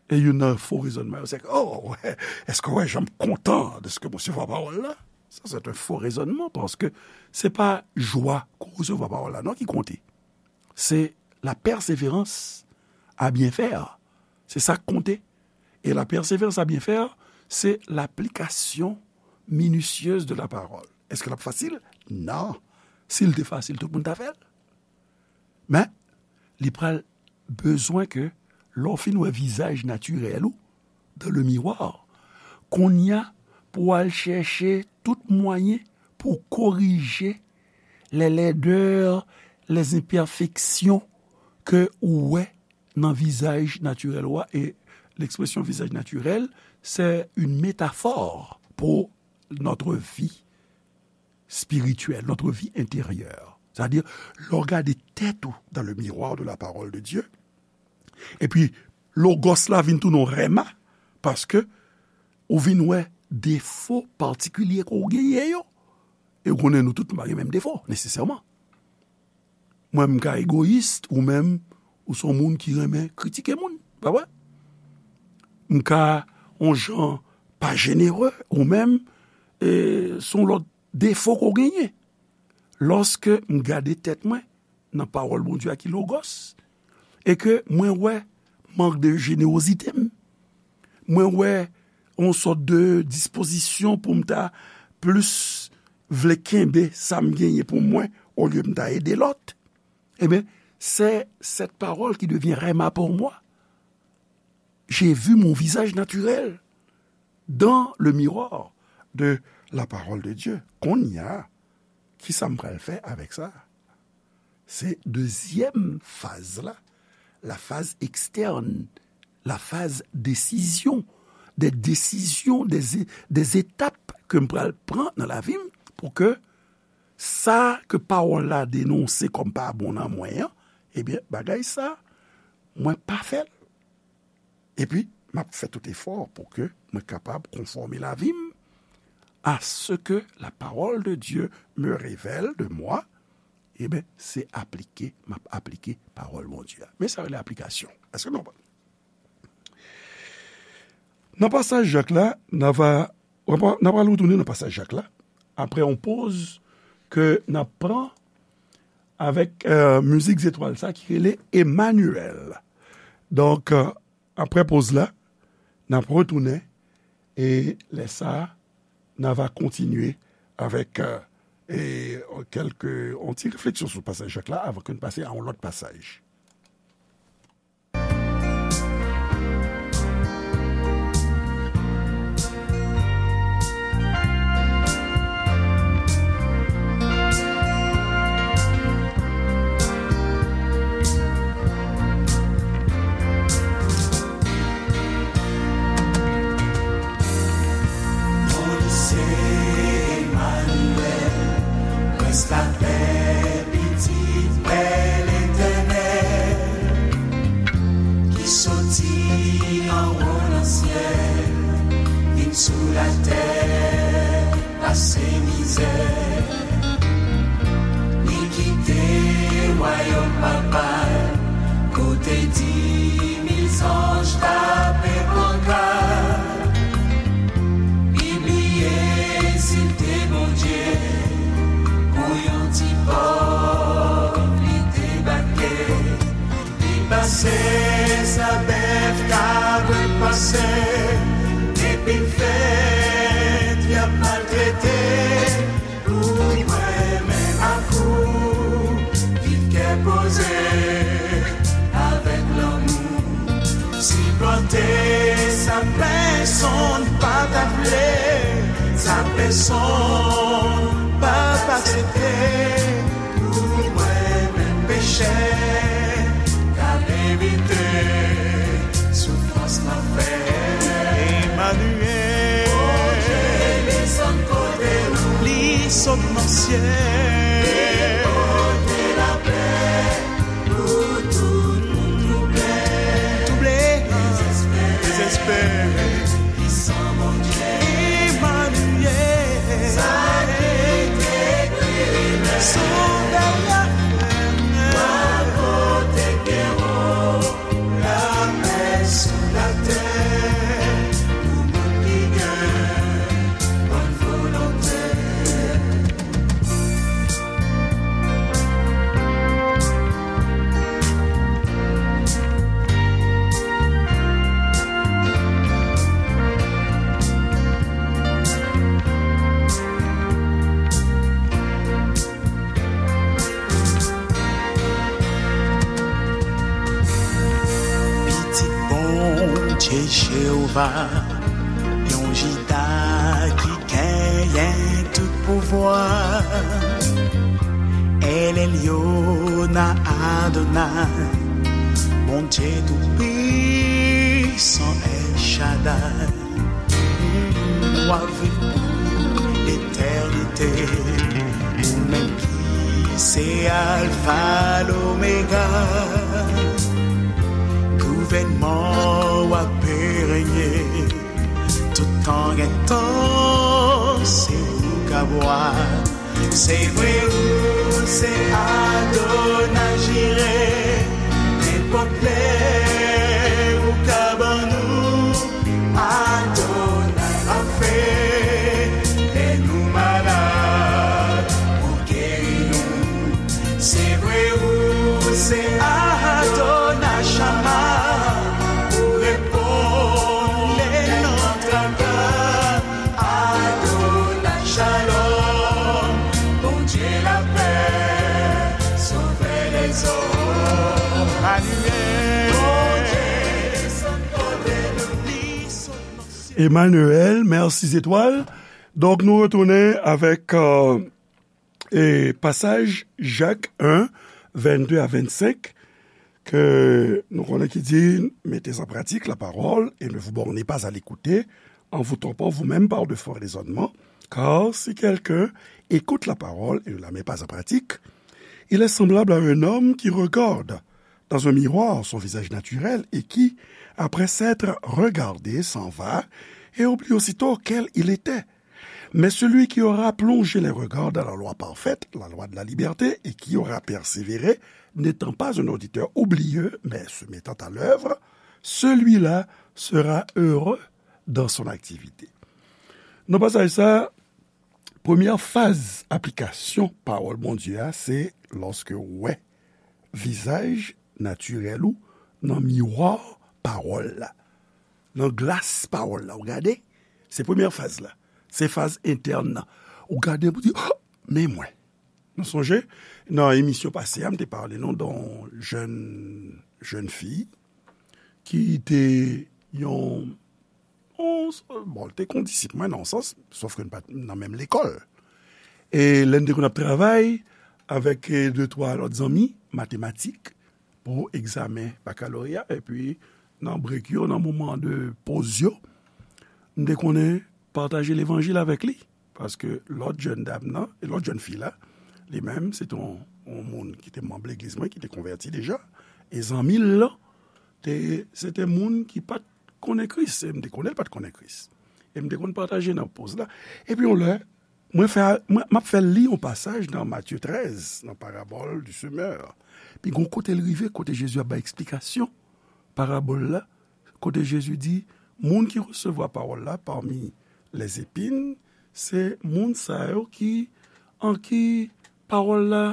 E youn nan fo rezònman yo, se ke, oh, wè, èske w wè jan m kontan de ce que m resevwa pawòl la? Sa, se yon fo rezònman, paske se pa jwa ke w resevwa pawòl la, non, ki konte. Se la persévérance à bien faire. Se sa k konte. E la persévérance à bien faire, se l'application minutieuse de la parole. Èske l ap fasil? Non. Si l te fasil, tout moun ta fè l. Men, li pral bezwen ke lè w fin wè vizaj natirèl ou dans le miroir, kounye a pou w al chèche tout mwayen pou w korije les laideurs, les imperfections ke ou wè nan vizaj natirèl ou a. E l'expression visage naturel, c'est une métaphore pour notre vie spirituelle, notre vie intérieure. C'est-à-dire, lè w gade tèt ou dans le miroir de la parole de Dieu, epi logos la vin tounen yon rèma, paske ou vin wè defo patikilye ke w genyen yo. E w konnen nou tout nou pa gen menm defo, nesesèman. Mwen, m ka egoyis, ou menm, ou se yon moun ki renmen kritike moun, pa vre? M ka yon jan pa jenere, ou menm, e, se yon lòt defo ke w genyen. Lòske m gade tèt mwen nan pawòl Bondye a ki logos, e ke mwen wè mank de jenerozite m, mwen wè yon sòt de dispozisyon pou m ta plis vle kenbe sa m genyen pou mwen, olye m ta ede lòt, ebyen, c'est cette parole qui devient rhema pour moi. J'ai vu mon visage naturel dans le miroir de la parole de Dieu. Kounye a, kisa m pral fè avèk sa? Se dezyèm faz la, la phase externe, la phase décision, des décisions, des, des étapes ke m pral pran nan lavi m pou ke sa ke pawòl la denonse kòm pa bon nan mwen an, ebyen, bagay sa, mwen pa fè l. Epi, m ap fè tout efò pou ke mwen kapab konfòme lavi m à ce que la parole de Dieu me révèle de moi. Ebyen, se aplike, m ap aplike pawòl Bondye a. Men sa rele aplikasyon. Èske nou konprann? Nan pasaj Jak la, n a va, n a pral retounen nan pasaj Jak la, apre yon poz ke n ap pran avèk, euh, mizik zetwal sa ki rele Emmanuel. Donk, euh, apre poz la, n ap retounen e lè sa a, n a va kontinye avèk, euh, e, kèlke, yon ti refleksyon sou pasaj Jak la avan ke n pase a yon lòt pasaj. Li anwo nan syèl, vin sou latè, pase mizè. Li kite wayòm Papa l, kote di mil zanj tape pankat. Li bliye si l te Bondye, pou yon ti pòv li debake. Li pase sa bèf, kabrit pase, epi l fèt y ap maltrete. Pou mwen menm ak ou, viv kè poze, avèk lanmou. Siplante sa pèsonn pa ta vle, sa pèsonn pa t aksepte. Pou mwen menm pechè, k ap evite soufrans lanfè. Emmanuel. Bondye desann kote nou. Li sot nan syèl. Li pote lapè pou tout moun twouble. Twouble. Dezespere. Dezespere. Pwisan Bondye. Emmanuel. Sa ki te kriye. Sovè la. Pral pote kè w. Lapè sou latè pou moun ki gen bòn volonte. Pitit Bondye Jewova, yon Jida ki genyen tout pouvwa. El Elyon Adonay, Bondye Toupisan El Shaddai. W ap viv pou letènite, ou menm ki se Alfa, Lomega. Gouvènman w ap renye, tout tan gen tan, se ou k ap wa. Se vre ou se Adonai Jire, nenpòt lè ou ka ban nou Adonai Rafe, lè nou malad ou geri nou. Se vre ou se Adonai Shama, ou reponn lè nan traka. Adonai Shalom, Bondye lapè, Sovè lèzòm. Emmanuel. Bondye desann kote nou, li sot nan syèl. Emmanuel, mèsi zetwal. Donk, nou retounen avèk, euh, e pasaj Jak en, vennde a vennsenk, ke nou konnen ki di, mettez en pratique la parole et ne vous bornez pas à l'écouter en vous trompant vous-même par de faux raisonnements, car si quelqu'un écoute la parole et ne la met pas en pratique, il est semblable à un homme qui regarde dans un miroir son visage naturel et qui, après s'être regardé, s'en va et oublie aussitôt quel il était. Mais celui qui aura plongé les regards dans la loi parfaite, la loi de la liberté, et qui aura persévéré, n'étant pas un auditeur oublieux, mais se mettant à l'œuvre, celui-là sera heureux dans son activité. Nan pasaj sa, premyè faz aplikasyon pawòl Bondye a, se lòske w wè vizaj natirèl ou nan miwa pawòl la, nan glas pawòl la. Ou gade, se premyè faz la. Se faz entèn nan. Ou gade pou di, "Oh, men mwen." Nou sonje, nan emisyon pase a, m te pale nou de yon jèn, jèn fi ki te yon, yon, bon, li te kon disip mwen nan yon sans, sòf ke n pa t nan menm lekòl. E lè n te konn ap travay avèk, e, de twa lòt zanmi, matematik, pou egzamen bakaloreya, epi nan brek yo, nan moman de poz yo, m te konnen pataje levanjil avèk li. Paske lòt jèn dam nan, e lòt jèn fi la, li menm, se te yon, yon moun ki te manm legliz mwen, ki te konvèti deja. E zanmi l lan, te, se te moun ki pa t konnen Kris, e m te konnen l pa t konnen Kris. E m te konn pataje nan poz la. Epi yon lè, mwen fè, mwen, m ap fè li yon pasaj nan Matye trèz, nan parabòl du semeur. Pi gon kote l rive, kote Jezi ap bay eksplikasyon parabòl la, kote Jezi di, moun ki resevwa pawòl la pami lèzepin, se moun sa yo ki, an ki pawòl la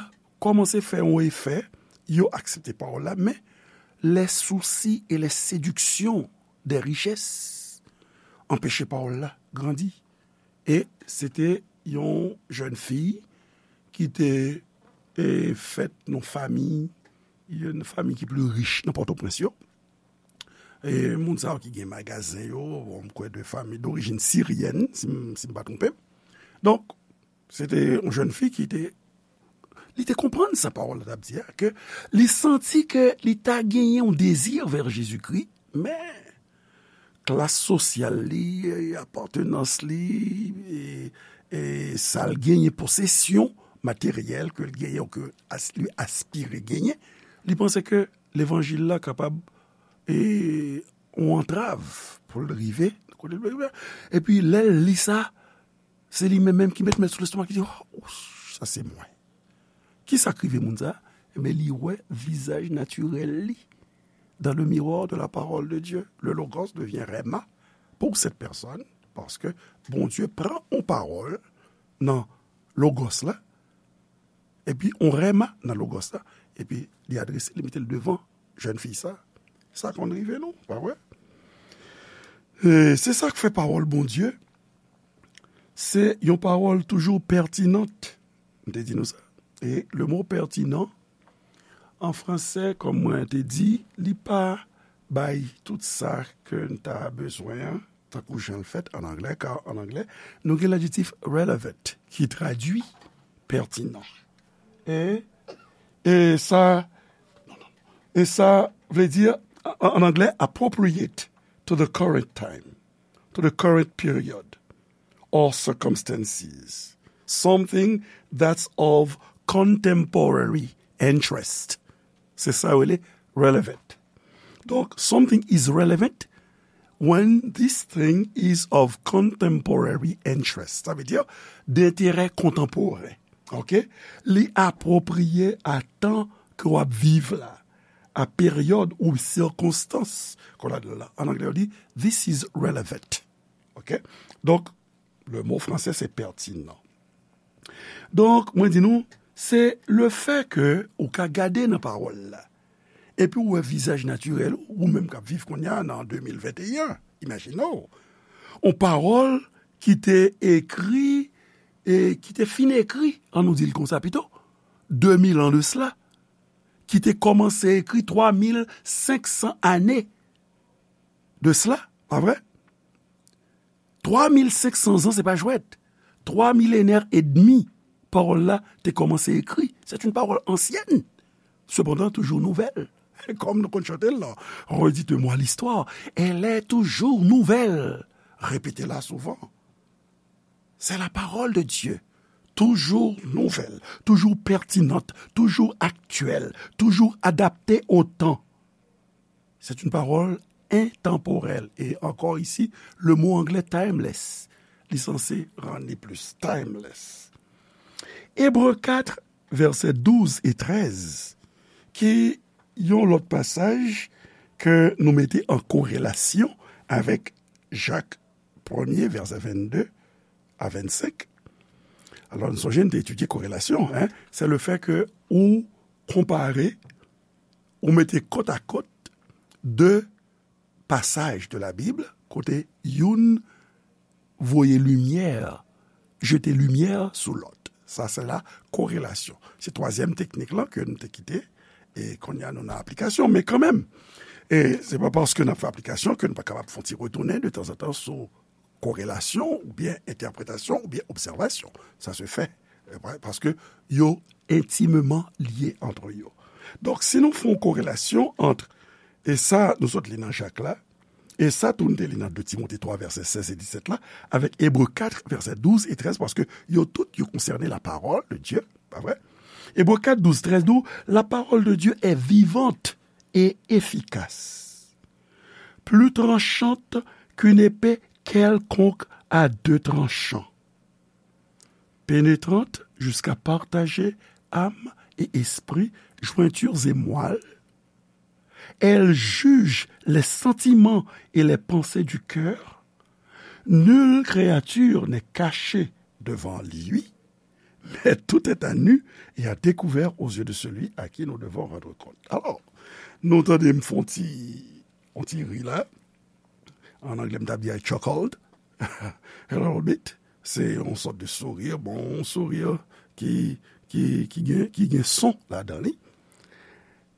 kòmanse fè yon efè, yo aksepte pawòl la, men les soucis et les séductions des richesses anpeche pawòl la grandi. E se te yon jèn fi ki te, e, fèt nan fami, yon fami ki pli rich nan Pòtoprens yo. E moun sa yo ki gen magazen yo, bon, m kwè de fami dorijin siryèn, si m, si m pa twonpe m. Donk, se te yon jèn fi ki te, li te konprann sa pawòl la t ap di a, ke li santi ke li ta genyen yon dezi vè Jezikri, men klas sosyal li, e, apatenans li, e, e sa l genyen, posesyon materyèl ke l genyen, ou ke as-, li aspire genyen, li panse ke levanjil la kapab, e, yon antrav pou l rive kote l vle rive. Epi lè l li sa, se li menm menm ki met men sou lestomak, li di, "Oh, sa se mwen." Ki sa k rive moun sa? Ebyen, li wè vizaj natirèl li dans le miroir de la parole de Dieu. Le Logos devient Rhema pour cette personne, paske Bondye pran yon pawòl nan Logos la, epi yon Rhema nan Logos la, epi li adrese, li mete l devan jèn fi sa. Sa konn rive nou, pa vre? E se sa k fè pawòl Bondye, se yon pawòl toujou pètinant. M te di nou sa. E le mo pètinan, an fransè, kòm mwen te di, li pa bay tout sa ke n ta bezwen an, tankou jan l fèt an anglè, ka an anglè, nou gen ladjektif relevant, ki tradui pètinan. E, e sa, e sa vle di, an, an anglè, appropriate to the current time, to the current period or circumstances. Something that's of contemporary interest. Se sa yo rele relevant. Donk, something is relevant when this thing is of contemporary interest. Sa vle di, denterè kontanporen. Ok? Li apwopriye a tan ke w ap viv la, a peryòd ou sikonstans ke w ladan la. An anglè, yo di, "This is relevant." Ok? Donk, le mo fransè, se pètinan. Donk, mwen di nou, se le fè ke ou ka gade nan pawòl la, epi ou wè vizaj natirèl ou, ou menm k ap viv kounye a nan de mil venteyen, imajine w, yon pawòl ki te ekri, e ki te fin ekri, an nou di l konsa pito, de mil an de sila, ki te kòmanse ekri twa mil senk san ane de sila, pa vre? Twa mil senk san zan, se pa jwèt. Twa milenè edmi, pawòl la te kòmanse ekri. C'est une parole ancienne, cependant toujours nouvelle. Kòm nou konn chante l lan, "Redites-moi l'histoire, elle est toujours nouvelle." Répétez-la souvent. C'est la parole de Dieu, toujours nouvelle, toujours pertinente, toujours actuelle, toujours adaptée au temps. C'est une parole intemporelle. Et encore ici, le mot anglais timeless, li sanse rann li plis timeless. Ebre kat, vèsè douz e trèz, ki yon lòt pasaj ke nou mete an korelasyon avèk Jak premye, vèsè vennde a vennsenk. Alò, nou sonje, nou te etidye korelasyon, en, se le fè ke ou konpare, ou mete kot a kot de pasaj de la Bib, kote youn voye limyè, jete limyè sou lòt. Sa se la korelasyon. Se twazyèm teknik lan ke nou te kite, e kounye a nou nan aplikasyon, men kanmenm, e se pa paske n ap fè aplikasyon ke nou pa kapab fè yon ti retounen de tanzantan sou korelasyon, oubyen entèpretasyon, oubyen obsèvasyon. Sa se fè, e, pa-, paske yo intimement liés entre yo. Donk, si nou fè yon korelasyon ant, e sa nou sot li nan Jak la, e sa tou nou te li nan de Timote twa, vèsè sèz e disèt la, avèk Ebre kat, vèsè douz e trèz, paske yo tout, yo konsène la parole de Dieu, pa vre? Ebre kat, douz, trèz di w, "La parole de Dieu est vivante et efficace." plus tranchante qu'une épée quelconque à deux tranchants, pénétrante jusqu'à partager âme et esprit, jointures et moelle. Elle juge les sentiments et les pensées du cœur. Nulle créature n'est cachée devant lui, mais tout est à nu et à découvert aux yeux de celui à qui nous devons rendre compte. Alò, nou tande m fè yon ti, yon ti ri la. An anglè, m t ap di I chuckled a little bit. Se yon sòt de sourire, bon, yon sourire ki, ki, ki gen, ki gen son ladan li.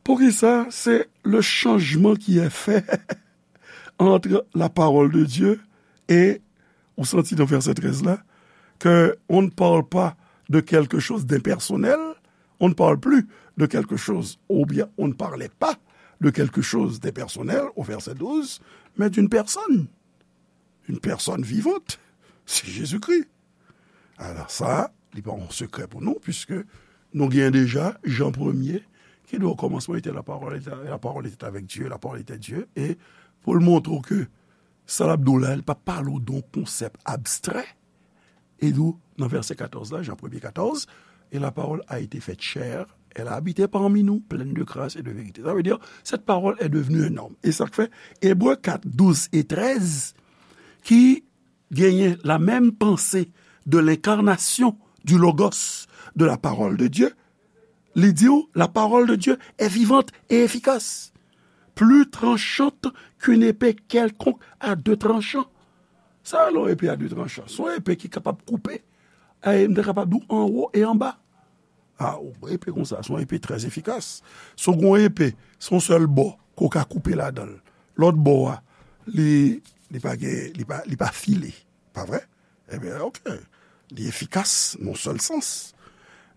Poukisa? C'est le changement qui est fait entre la parole de Dieu et, ou santi dans verset treize là, que on ne parle pas de quelque chose d'impersonnel, on ne parle plus de quelque chose, ou bien on ne parlait pas de quelque chose d'impersonnel au verset douze, mais d'une personne, une personne vivante, c'est Jésus-Christ. Alò, sa, li pa yon sekrè pou nou, puiske nou gen deja Jan premye, ki di, au commencement était la parole, et la parole était avec Dieu, la parole était Dieu, e pou l montre w ke sa l ap di w la, li pa pale w de yon konsèp abstrè, e di w, nan vèsè katòz la, Jan premye katòz, et la parole a été faite chair, elle a habité parmi nous, pleine de grâce et de vérité. Ça veut dire, cette parole est devenue un homme. E sa k fè, Ebre kat, douz e trèz, ki genyen la même pensée de l'incarnation du Logos, de la parole de Dieu, li di w, la parole de Dieu est vivante et efficace, plus tranchante qu'une épée quelconque à deux tranchants. Sa rele yon epe a de tranchan. Se yon epe ki kapab koupe. E m te kapab di w anwo e anba. A, yon epe konsa, se yon epe trè efikas. Si w gen yon epe, se yon sèl bò ke w ka koupe ladan l. Lòt bò a, li, li pa gen, li pa, li pa file. Pa vre? Ebyen, oke. Li efikas nan yon sèl sans.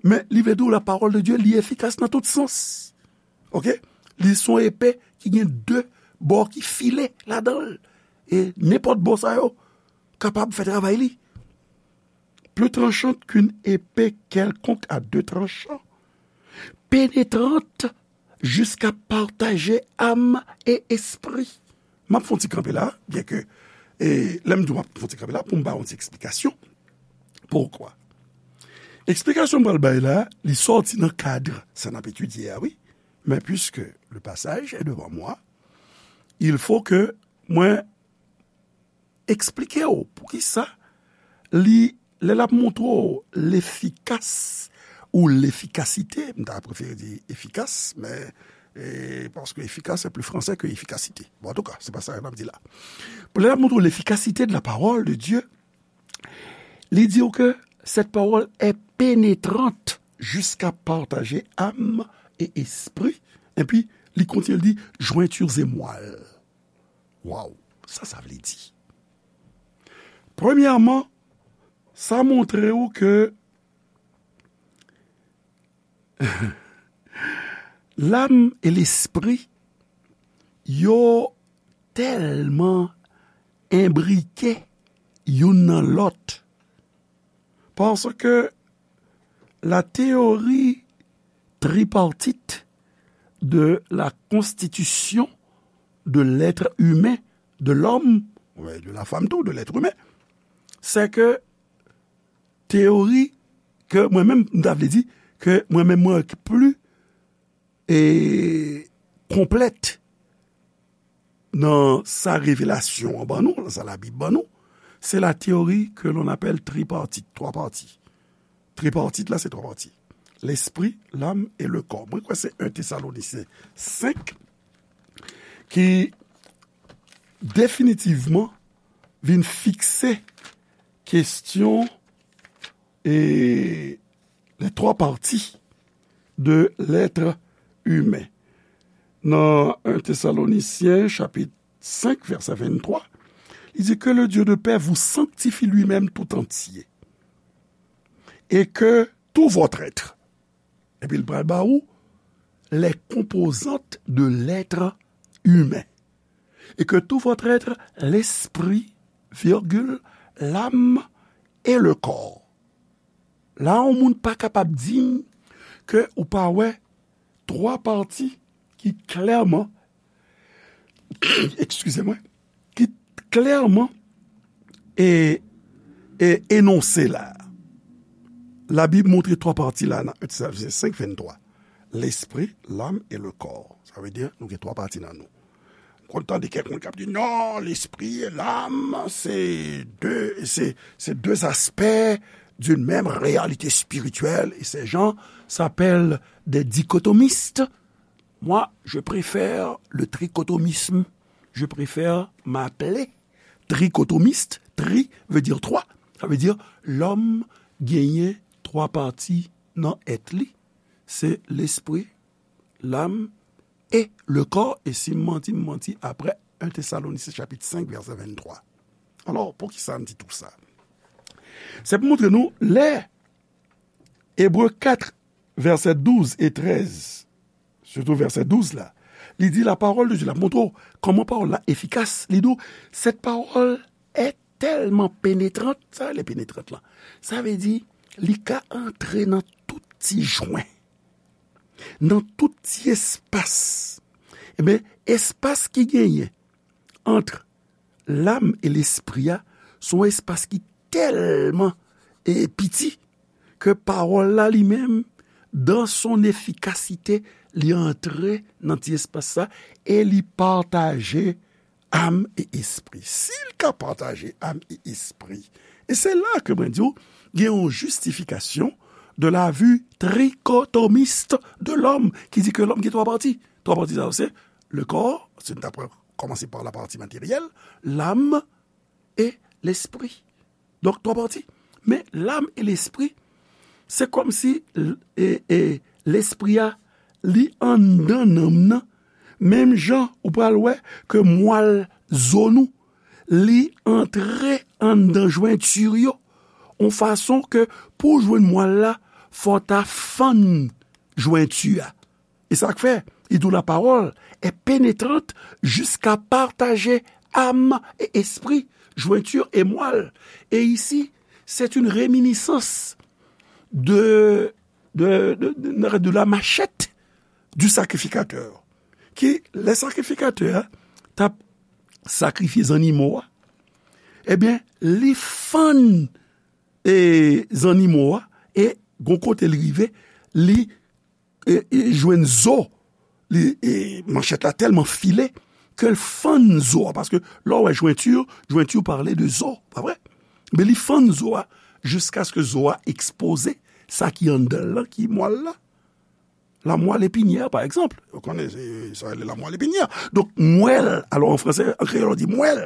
Men, li vle di w, la parole de Dieu, li efikas nan tout sans. Oke? Li se yon epe ki gen de bò ki file ladan l. E nenpòt bò sa yo kapab fè travay li. Plus tranchante qu'une épée quelconque à deux tranchants, pénétrante jusqu'à partager âme et esprit. M ap fè yon ti kanpe la, byen ke, e, lè m di w m ap fè yon ti kanpe la, pou m ba yon ti eksplikasyon. Poukwa? Eksplikasyon m pral bay la, li sòti nan kad sa n ap etidye a, wi. Men puiske le passage est devant moi, il faut que mwen eksplike w poukisa li, lè l ap montre w lefikas ou lefikasite, m ta prefere di efikas, men, e, paske efikas se pli franse ke efikasite. Bon, antouka, se pa sa n ap di la. Lè l ap montre w lefikasite de la parole de Dieu, li di w ke cette parole est pénétrante jusqu'à partager âme et esprit. Epi, li kontinye, li di, jointures et moelle. Waw, sa sa vle di? Premyèman, sa montre w ke lam e lespri yo tèlman enbrike youn nan lòt. Paske la théorie tripartite de la constitution de l'être humain, de l'homme, ouais, de la femme tou, de l'être humain, c'est que teyori ke mwen menm, m ta vle di, ke mwen menm mwen ki pli e konplèt nan sa revelasyon an ban nou, nan sa Labib ban nou, c'est la théorie que l'on appelle tripartite, twa pati. Tripartite la, se twa pati. L'esprit, l'âme et le corps. Mwen kwè se en Tesalonisyen senk ki definitivman vin fikse kesyon e les trois parties de l'être humain. Nan en Tesalonisyen, chapit senk, vèsè venntwa, li di, que le Dieu de paix vous sanctifie lui-même tout entier, et que tout votre être, epi l pral ba ou les composantes de l'être humain, et que tout votre être, l'esprit, virgule, l'âme et le corps. La, yon moun pa kapab di m ke ou pa wè twa pati ki klèman Eskize mwen, ki klèman e, e enonse la. Labib montre twa pati la nan en Tesalonisenyen senk venntwa. Lespri, lam e le kò. Sa vle di, nou gen twa pati nan nou. M konn tande kèk moun k ap di, non, lespri e lam, se de, se, se de aspè d'une même réalité spirituelle, et ces gens s'appellent des dichotomistes. Moi, je préfère le trichotomisme. Je préfère m'appeler trichotomiste. Tri veut dire trois. Sa vle di, lòm genyen twa pati nan èt li. Se lespri, lam e le kò. E si m manti, m manti apre en Tesalonisyen chapit senk, vèsè venntwa. Alò, poukisa m di tou sa? Se pou montre nou, lè Ebre kat, vèsè douz e trèz, sitou vèsè douz la, li di, la parole de Dieu, l ap montre w kòman pawòl la efikas. Li di w, cette parole est tellement pénétrante, sa rele pénétrante la. Sa vle di, li ka antre nan tout ti jwen, nan tout ti espas. Ebyen, espas ki genyen ant lam e lespri a, se yon espas ki tèlman, e, piti, ke pawòl la li menm, dans son efficacité, li antre nan ti espas sa e li pataje am e espri. Si l ka pataje am e espri, e se la ke mwen di w, gen yon justification de la vue trichotomiste de l'homme, ki di ke lòm gen twa pati. Twa pati sa yo se le corps, si n ta pran, kòmanse pa la pati materyèl, lam e lespri. Donk, twa pati. Men lam e lespri, se kòmsi l-, e, e, lespri a, li anndan nanm nan. Menm jan ou pral wè ke mwal zo nou, li antre anndan jwenti yo, yon fason ke pou w jwenn mwal la, fò w ta fann jwenti a. E sa k fè, li di w la parole est pénétrante jusqu'à partager âme et esprit, jointure et moelle. Et ici, c'est une réminiscence de, de, de, de, de la machette du sacrificateur. Ki, lè sakrifikatè a t ap sakrifye zannimo a, ebyen, li fann, e, zannimo a, e gon kote l rive, li, e, e, jwenn zo, li, e, manchèt la tèlman file ke l fann zo a, paske lè w wè jwenti, jwenti pale de zo, pa vre? Men li fann zo a jiskaske zo a ekspoze sa ki anndan l lan, ki mwal la. La moelle épinière, pa egzanp. Ou konnen, se, sa rele la moelle épinière. Donk, mwèl, alò an fransè, an kreyòl, on di mwèl.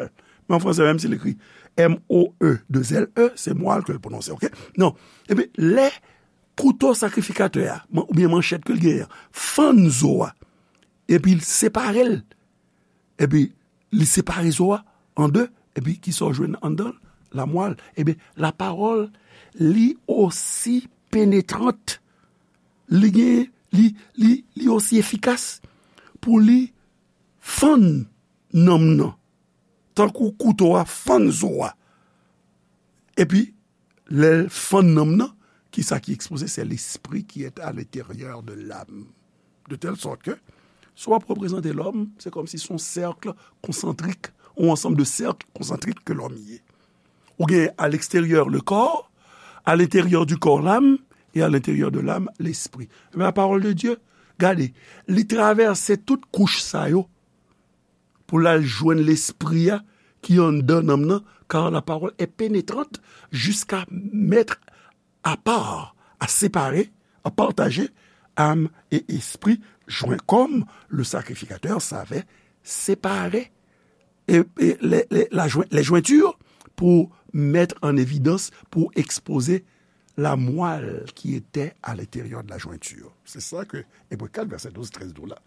Men an fransè, menm si l ekri M O E de L E, se mwal ke l pwononse, oke? Non. Ebyen, lè kouto sakrifikatè a, man-, oubyen manchèt ke l genyen an, fann zo a, epi l separe l, epi li separe zo a an de, epi kisa w jwenn anndan l? Lamwal. Ebyen, lapawòl, li osi penetrant, li gen, li, li, li osi efikas pou li fann nanm nan, tankou kouto a fann zo a. Epi, lè l fann nanm nan, kisa ki ekspoze? C'est l'esprit qui est à l'intérieur de l'âme. De telle sorte que, si w ap reprezante lòm, se kòmsi se yon sèk konsantrik, yon ansanm de sèk konsantrik ke lòm ye. Ou gen à l'extérieur le corps, à l'intérieur du corps l'âme, et à l'intérieur de l'âme l'esprit. Men la parole de Dieu, gade, li travèse tout kouch sa yo, pou l al jwenn lespri a ki anndan nanm nan, car la parole est pénétrante jusqu'à mettre à part, à séparer, à partager âme et esprit, joint comme le sacrificateur savait séparer et, et les, les, la join-, les jointures pour mettre en évidence, pour exposer la moelle qui était à l'intérieur de la jointure. Se sa ke Ebre kat, vèsè douz, trèz di w la.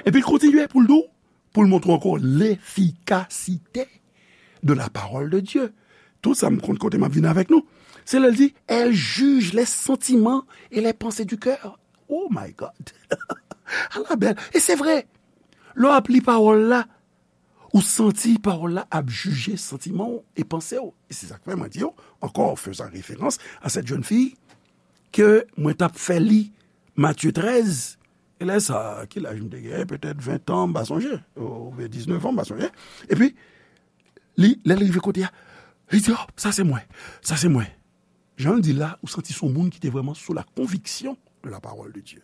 Epi l kontinye pou l di w, pou l montre w ankò lefikasite de la parole de Dieu. Tout sa m konn kote m ap vin avèk nou. Se lè l di, elle juge les sentiments et les pensées du cœur. Oh my God! Ala bèl. E se vre. Lè w ap li pawòl la, ou santi pawòl la ap jije santiman w e panse w. E se sa k fè mwen di w, encore faisant référence à cette jeune fille, ke mwen t ap fè li Matye trèz, E lè sa, ki laj m te gen? Petèt ven an, m pa sonje. Oubyen diznèf an, m pa sonje. Epi, li, lè l rive kote a, li di, "Oh, sa se mwen. Sa se mwen." Jan l di la, ou santi se yon moun ki te vrèman sou la conviction de la parole de Dieu.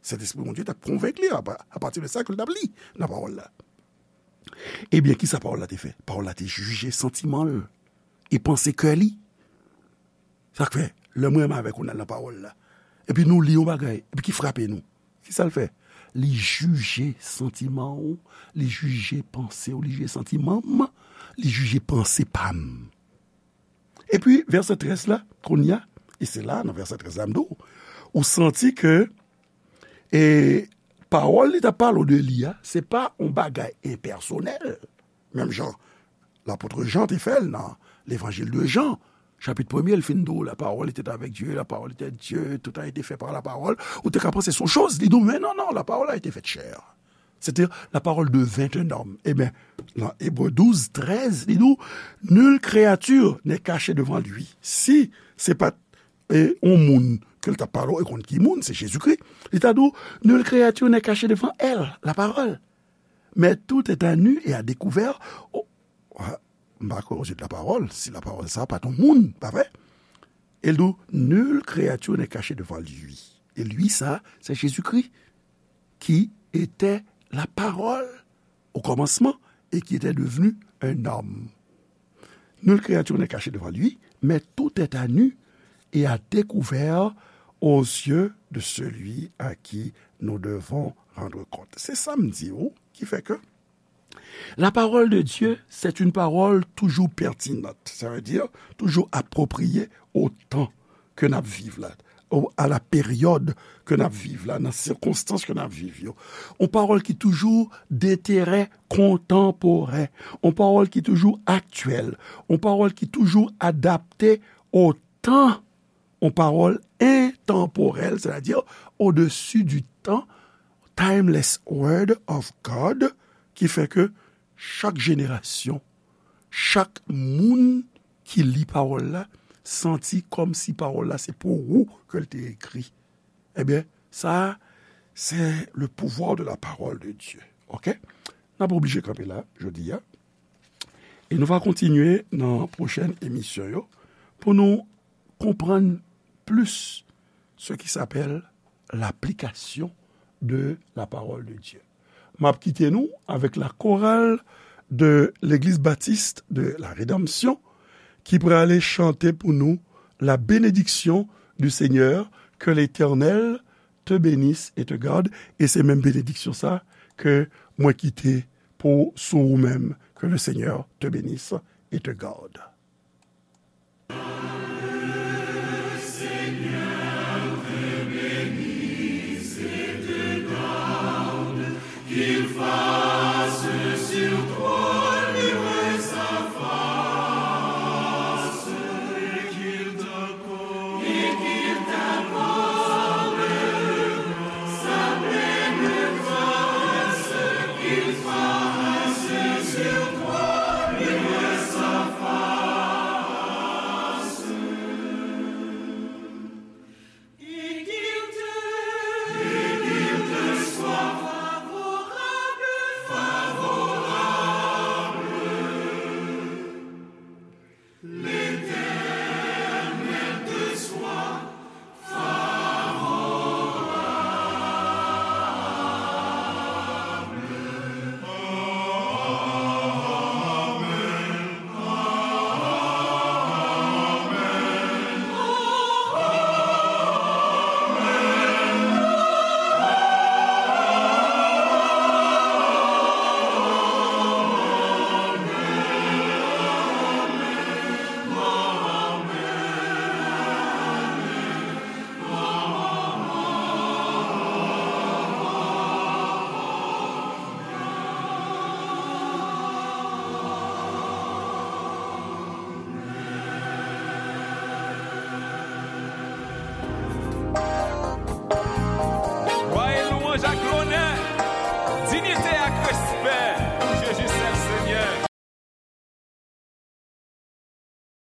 Sentespri Bondye t ap konvenk li a, apati de sa ke l t ap li nan pawòl la. Ebyen, ki sa pawòl la te fè? Pawòl la te jije santiman l e panse kè li. Sa k fè, lè mwen menm avèk ou n al nan pawòl la, epi nou li yon bagay, epi ki frape nou, ki sa l fè? Li jije santiman w, li jije panse w, li jije santiman m, li jije panse pa m. Epi, vèsè trèz la, kounye a, e se la, nan vèsè trèz la, m di w, ou santi ke, e, pawòl li t ap pale w de li a, se pa yon bagay enpèsonèl. Menm jan lapot Jan te fè l nan Levanjil de Jan, chapit premye, l fin di w, "La parole était avec Dieu, la parole était Dieu, tout a été fait par la parole." Ou te ka panse se yon choz, li di w, "Men non, non, la parole a été faite chair." C'était la parole devint un homme. Ebyen, nan Ebre douz, trèz, li di w, "Nulle créature n'est cachée devant lui." Si se pa t, e, yon moun ke l t ap pale w, e kont ki moun, se Jezikri, li ta di w, "Nulle créature n'est cachée devant elle, la parole. Mais tout est à nu et à découvert." O, a, m pa kwè aux yeux de la parole, si la parole sa pa t yon moun, pa vre? E l di w, "Nulle créature n'est cachée devant lui." E lui sa, se Jezikri, qui était la parole au commencement et qui était devenu un homme. "Nulle créature n'est cachée devant lui, mais tout est à nu et à découvert aux yeux de celui à qui nous devons rendre compte." Se sa m di w, ki fè ke la parole de Dieu, c'est une parole toujours pertinente, ça veut dire toujours appropriée au temps ke n ap viv la, o, à la période ke n ap viv la, nan sikonstans ke n ap viv yo. Yon pawòl ki toujou d'intérêt contemporain, yon pawòl ki toujou aktyèl, yon pawòl ki toujou adapte au temps, yon pawòl entanporèl, sètadi au-dessus du temps, timeless word of God, ki fè ke chak jenerasyon, chak moun ki li pawòl la, santi kòmsi pawòl la se pou ou ke l te ekri. Ebyen, sa, se le pouvoir de la parole de Dieu. Oke? N ap oblije kanpe la, jodi a. E nou va kontinye nan pwochèn emisyon yo pou nou konprann plis ce qui s'appelle l'application de la parole de Dieu. M ap kite nou avèk la chorale de l'Église Baptiste de la Rédemption ki prale chante pou nou la bénédiction du Seigneur, que l'Éternel te bénisse et te garde. E se menm benediksyon sa ke mwen kite pou sou ou menm, que le Seigneur te bénisse et te garde.